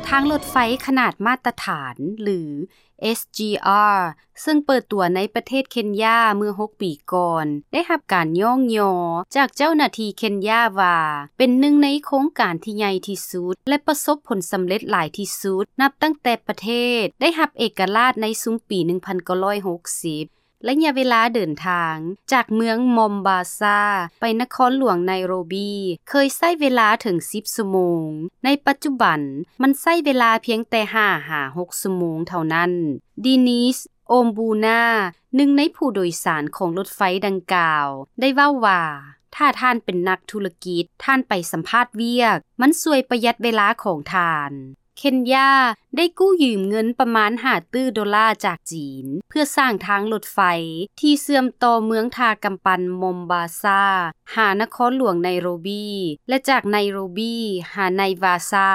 ທາງລົດໄຟຂະໜາດມາດຕະຖານ ຫຼື ເອສຈີອາ ເຊິ່ງເປີດຕົວໃນປະເທດເຄນຢາເມື່ອຫົກປີກ່ອນ ໄດ້ຮັບການຍ້ອງຍໍຈາກເຈົ້າໜ້າທີ່ເຄນຢາວ່າ ເປັນໜຶ່ງໃນໂຄງການທີ່ໃຫຍ່ທີ່ສຸດ ແລະ ປະສົບຜົນສຳເລັດຫຼາຍທີ່ສຸດ ນັບຕັ້ງແຕ່ປະເທດໄດ້ຮັບເອກະລາດໃນຊຸມປີໜຶ່ງພັນເກົ້າຮ້ອຍຫົກສິບ. ໄລຍະເວລາເດີນທາງຈາກເມືອງມອມບາຊາໄປນະຄອນຫຼວງໄນໂຣບີ ເຄີຍໃຊ້ເວລາເຖິງສິບຊົ່ວໂມງ. ໃນປັດຈຸບັນມັນໃຊ້ເວລາພຽງແຕ່ຫ້າຫາຫົກຊົ່ວໂມງເທົ່ານັ້ນ. ດີນິສ ໂອມບູນາ ໜຶ່ງໃນຜູ້ໂດຍສານຂອງລົດໄຟດັ່ງກ່າວ ໄດ້ເວົ້າວ່າ ຖ້າທ່ານເປັນນັກທຸລະກິດ, ທ່ານໄປສຳພາດວຽກ, ມັນຊ່ວຍປະຢັດເວລາຂອງທ່ານ. ເຄນຢາໄດ້ກູ້ຢືມເງິນປະມານຫ້າຕື້ໂດລາຈາກຈີນ ເພື່ອສ້າງທາງລົດໄຟທີ່ເຊື່ອມຕໍ່ເມືອງທ່າກຳປັ່ນມອມບາຊາຫານະຄອນຫຼວງໄນໂຣບີ ແລະ ຈາກໄນໂຣບີຫາໄນວາຊາ.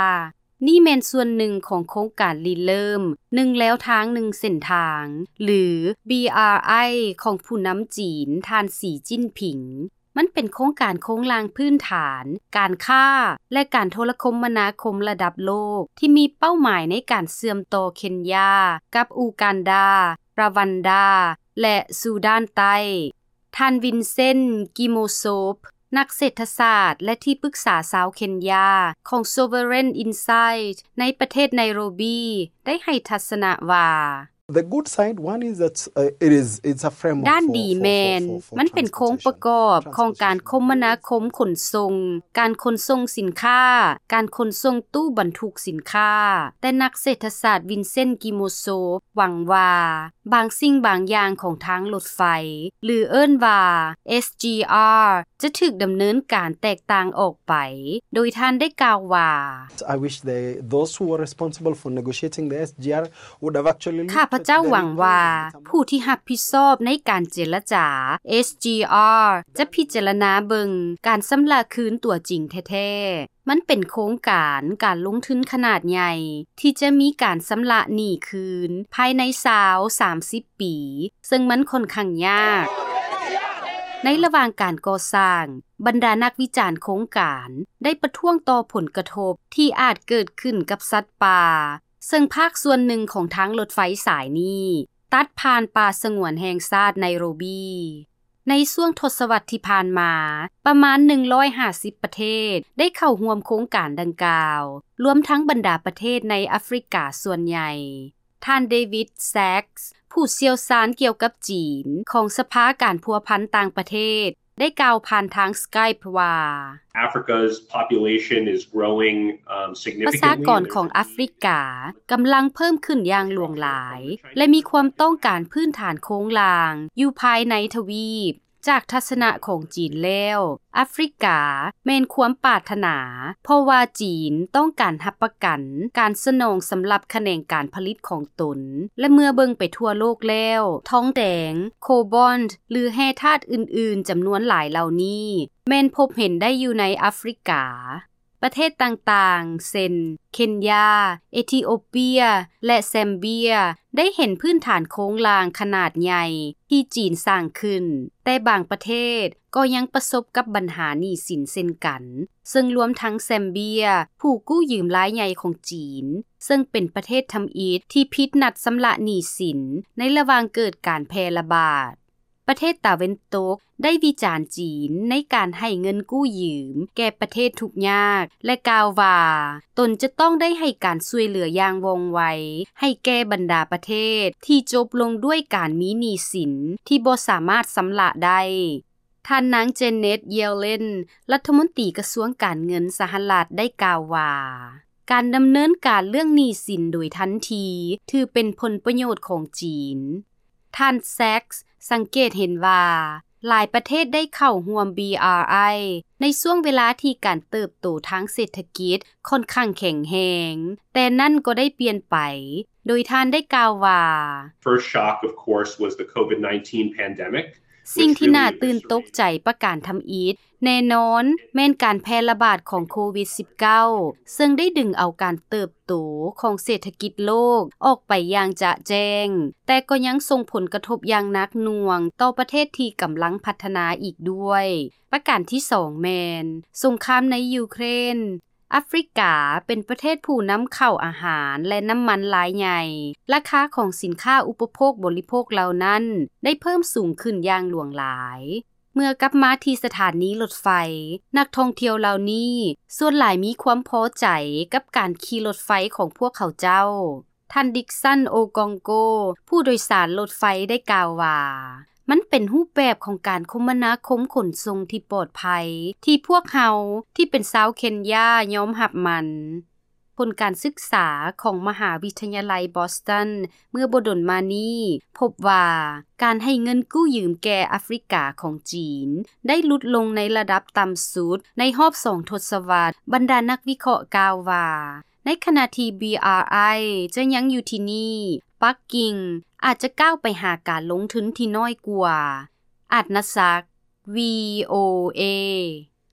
ນີ້ແມ່ນສ່ວນໜຶ່ງຂອງໂຄງການລິເລີ່ມໜຶ່ງແລວທາງໜຶ່ງເສັ້ນທາງ ຫຼື ບີອາໄອ ຂອງຜູ້ນຳຈີນ ທ່ານ ສີ ຈິ້ນຜິງ. ມັນເປັນໂຄງການໂຄງລ່າງພື້ນຖານ, ການຄ້າ ແລະ ການໂທລະຄົມມະນາຄົມລະດັບໂລກ ທີ່ມີເປົ້າໝາຍໃນການເຊື່ອມຕໍ່ເຄນຢາກັບອູກັນດາ, ຣາວັນດາ ແລະ ຊູດານໃຕ້. ທ່ານ ວິນເຊັນ ກິໂມໂຊບ ນັກເສດຖະສາດ ແລະ ທີ່ປຶກສາຊາວເຄນຢາຂອງ Sovereign Insight ໃນປະເທດໄນໂຣບີ ໄດ້ໃຫ້ທັດສະນະວ່າ The good side, one is that, uh, it is, it's a framework ດ້ານດີແມ່ນ ມັນເປັນໂຄງປະກອບຂອງການຄົມມະນາຄົມຂົນສົ່ງ, ການຂົນສົ່ງສິນຄ້າ, ການຂົນສົ່ງຕູ້ບັນທຸກສິນຄ້າ. ແຕ່ນັກເສດຖະສາດ ວິນເຊັນ ກິໂມໂຊບ ຫວັງວ່າ ບາງສິ່ງບາງຢ່າງຂອງທາງລົດໄຟ ຫຼື ເອີ້ນວ່າ ເອສຈີອາ ຈະຖືກດຳເນີນການແຕກຕ່າງອອກໄປ, ໂດຍທ່ານໄດ້ກ່າວວ່າ I wish they, those who were responsible for negotiating the S G R would have actually looked at the recovery mechanism. ຂ້າພະເຈົ້າຫວັງວ່າ ຜູ້ທີ່ຮັບຜິດຊອບໃນການເຈລະຈາ ເອສຈີອາ ຈະພິຈາລະນາເບິ່ງການຊຳລະຄືນຕົວຈິງແທ້ໆ. ມັນເປັນໂຄງການການລົງທຶນຂະໜາດໃຫຍ່ ທີ່ຈະມີການຊຳລະໜີ້ຄືນພາຍໃນຊາວ ສາມສິບປີ, ເຊິ່ງມັນຂ້ອນຂ້າງຍາກ. ໃນລະຫວ່າງການກໍ່ສ້າງ, ບັນດານັກວິຈານໂຄງການໄດ້ປະທ້ວງຕໍ່ຜົນກະທົບທີ່ອາດເກີດຂຶ້ນກັບສັດປ່າ, ເຊິ່ງພາກສ່ວນໜຶ່ງຂອງທາງລົດໄຟສາຍນີ້ຕັດຜ່ານປ່າສະຫງວນແຫ່ງຊາດໄນໂຣບີ. ໃນຊ່ວງທົດສະວັດທີ່ຜ່ານມາ, ປະມານໜຶ່ງຮ້ອຍຫ້າສິບປະເທດໄດ້ເຂົ້າຮ່ວມໂຄງການດັ່ງກ່າວ, ລວມທັງບັນດາປະເທດໃນອາຟຣິກາສ່ວນໃຫຍ່. ທ່ານ ເດວິດ ແຊັກສ໌ ຜູ້ຊ່ຽວຊານກ່ຽວກັບຈີນຂອງສະພາການພົວພັນຕ່າງປະເທດ ໄດ້ກ່າວຜ່ານທາງ Skype ວ່າ Africa's population is growing, um, ປະຊາ significantly. ກອນຂອງອາຟຣິກາກຳລັງເພີ່ມຂຶ້ນຢ່າງຫຼວງຫຼາຍ ແລະ ມີຄວາມຕ້ອງການພື້ນຖານໂຄງລ່າງຢູ່ພາຍໃນທະວີບ. ຈາກທັດສະນະຂອງຈີນແລ້ວ, ອາຟຣິກາແມ່ນຄວາມປາດຖະໜາ, ເພາະວ່າຈີນຕ້ອງການຮັບປະກັນການສະໜອງສຳລັບຂະແໜງການຜະລິດຂອງຕົນ, ແລະ ເມື່ອເບິ່ງໄປທົ່ວໂລກແລ້ວ, ທອງແດງ, ໂຄບອນ ຫຼື ແຮ່ທາດອື່ນໆຈຳນວນຫຼາຍເຫຼົ່ານີ້ ແມ່ນພົບເຫັນໄດ້ຢູ່ໃນອາຟຣິກາ. ປະເທດຕ່າງໆ ເຊັ່ນ ເຄນຢາ, ເອທິໂອເປຍ ແລະ ແຊມເບຍ ໄດ້ເຫັນພື້ນຖານໂຄງລ່າງຂະໜາດໃຫຍ່ທີ່ຈີນສ້າງຂຶ້ນ, ແຕ່ບາງປະເທດກໍຍັງປະສົບກັບບັນຫາໜີ້ສິນເຊັ່ນກັນ, ເຊິ່ງລວມທັງແຊມເບຍ ຜູ້ກູ້ຢືມລາຍໃຫຍ່ຂອງຈີນ, ເຊິ່ງເປັນປະເທດທຳອິດທີ່ຜິດນັດຊຳລະໜີ້ສິນໃນລະຫວ່າງເກີດການແຜ່ລະບາດ. ປະເທດຕາເວັນຕົກໄດ້ວິຈານຈີນໃນການໃຫ້ເງິນກູ້ຢືມແກ່ປະເທດທຸກຍາກ ແລະ ກ່າວວ່າຕົນຈະຕ້ອງໄດ້ໃຫ້ການຊ່ວຍເຫຼືອຢ່າງວ່ອງໄວໃຫ້ແກ່ບັນດາປະເທດທີ່ຈົບລົງດ້ວຍການມີໜີ້ສິນທີ່ບໍ່ສາມາດຊຳລະໄດ້. ທ່ານນາງ ເຈເນັດ ເຢເລັນ ລັດຖະມົນຕີກະຊວງການເງິນສະຫະລັດ ໄດ້ກ່າວວ່າ ການດຳເນີນການເລື່ອງໜີ້ສິນໂດຍທັນທີ ຖືເປັນຜົນປະໂຫຍດຂອງຈີນ. ທ່ານ ແຊັກສ໌ ສັງເກດເຫັນວ່າ ຫຼາຍປະເທດໄດ້ເຂົ້າຮ່ວມ ບີອາໄອ ໃນຊ່ວງເວລາທີ່ການເຕີບໂຕທາງເສດຖະກິດຂ້ອນຂ້າງແຂງແຮງ, ແຕ່ນັ້ນກໍໄດ້ປ່ຽນໄປ, ໂດຍທ່ານໄດ້ກ່າວວ່າ First shock, of course, was the COVID nineteen pandemic. ສິ່ງທີ່ໜ້າຕື່ນຕົກໃຈປະການທຳອິດ ແນ່ນອນແມ່ນການແຜ່ລະບາດຂອງໂຄວິດສິບເກົ້າ ເຊິ່ງໄດ້ດຶງເອົາການເຕີບໂຕຂອງເສດຖະກິດໂລກອອກໄປຢ່າງຈະແຈ້ງ, ແຕ່ກໍຍັງສົ່ງຜົນກະທົບຢ່າງໜັກໜ່ວງຕໍ່ປະເທດທີ່ກຳລັງພັດທະນາອີກດ້ວຍ. ປະການທີສອງແມ່ນ ສົງຄາມໃນຢູເຄຣນ ອາຟຣິກາເປັນປະເທດຜູ້ນຳເຂົ້າອາຫານ ແລະ ນ້ຳມັນລາຍໃຫຍ່. ລາຄາຂອງສິນຄ້າອຸປະໂພກບໍລິໂພກເຫຼົ່ານັ້ນ ໄດ້ເພີ່ມສູງຂຶ້ນຢ່າງຫຼວງຫຼາຍ. ເມື່ອກັບມາທີ່ສະຖານີລົດໄຟ, ນັກທ່ອງທ່ຽວເຫຼົ່ານີ້ສ່ວນຫຼາຍມີຄວາມພໍໃຈກັບການຂີ່ລົດໄຟຂອງພວກເຂົາເຈົ້າ. ທ່ານ ດິກສັນ ໂອກອງໂກ ຜູ້ໂດຍສານລົດໄຟ ໄດ້ກ່າວວ່າ, ມັນເປັນຮູບແບບຂອງການຄົມມະນາຄົມຂົນສົ່ງທີ່ປອດໄພ ທີ່ພວກເຮົາທີ່ເປັນຊາວເຄນຢາຍອມຮັບມັນ. ຜົນການສຶກສາຂອງມະຫາວິທະຍາໄລບອສຕັນ ເມື່ອບໍ່ດົນມານີ້ ພົບວ່າການໃຫ້ເງິນກູ້ຢືມແກ່ອາຟຣິກາຂອງຈີນ ໄດ້ຫຼຸດລົງໃນລະດັບຕ່ຳສຸດໃນຮອບສອງທົດສະວັດ. ບັນດານັກວິເຄາະກ່າວວ່າ, ໃນຂະນະທີ່ ບຣີ ອາ ໄອ ຈະຍັງຢູ່ທີ່ນີ້, ປັກກິ່ງອາດຈະກ້າວໄປຫາການລົງທຶນທີ່ນ້ອຍກວ່າ. ອາດນະສັກ ວີໂອເອ.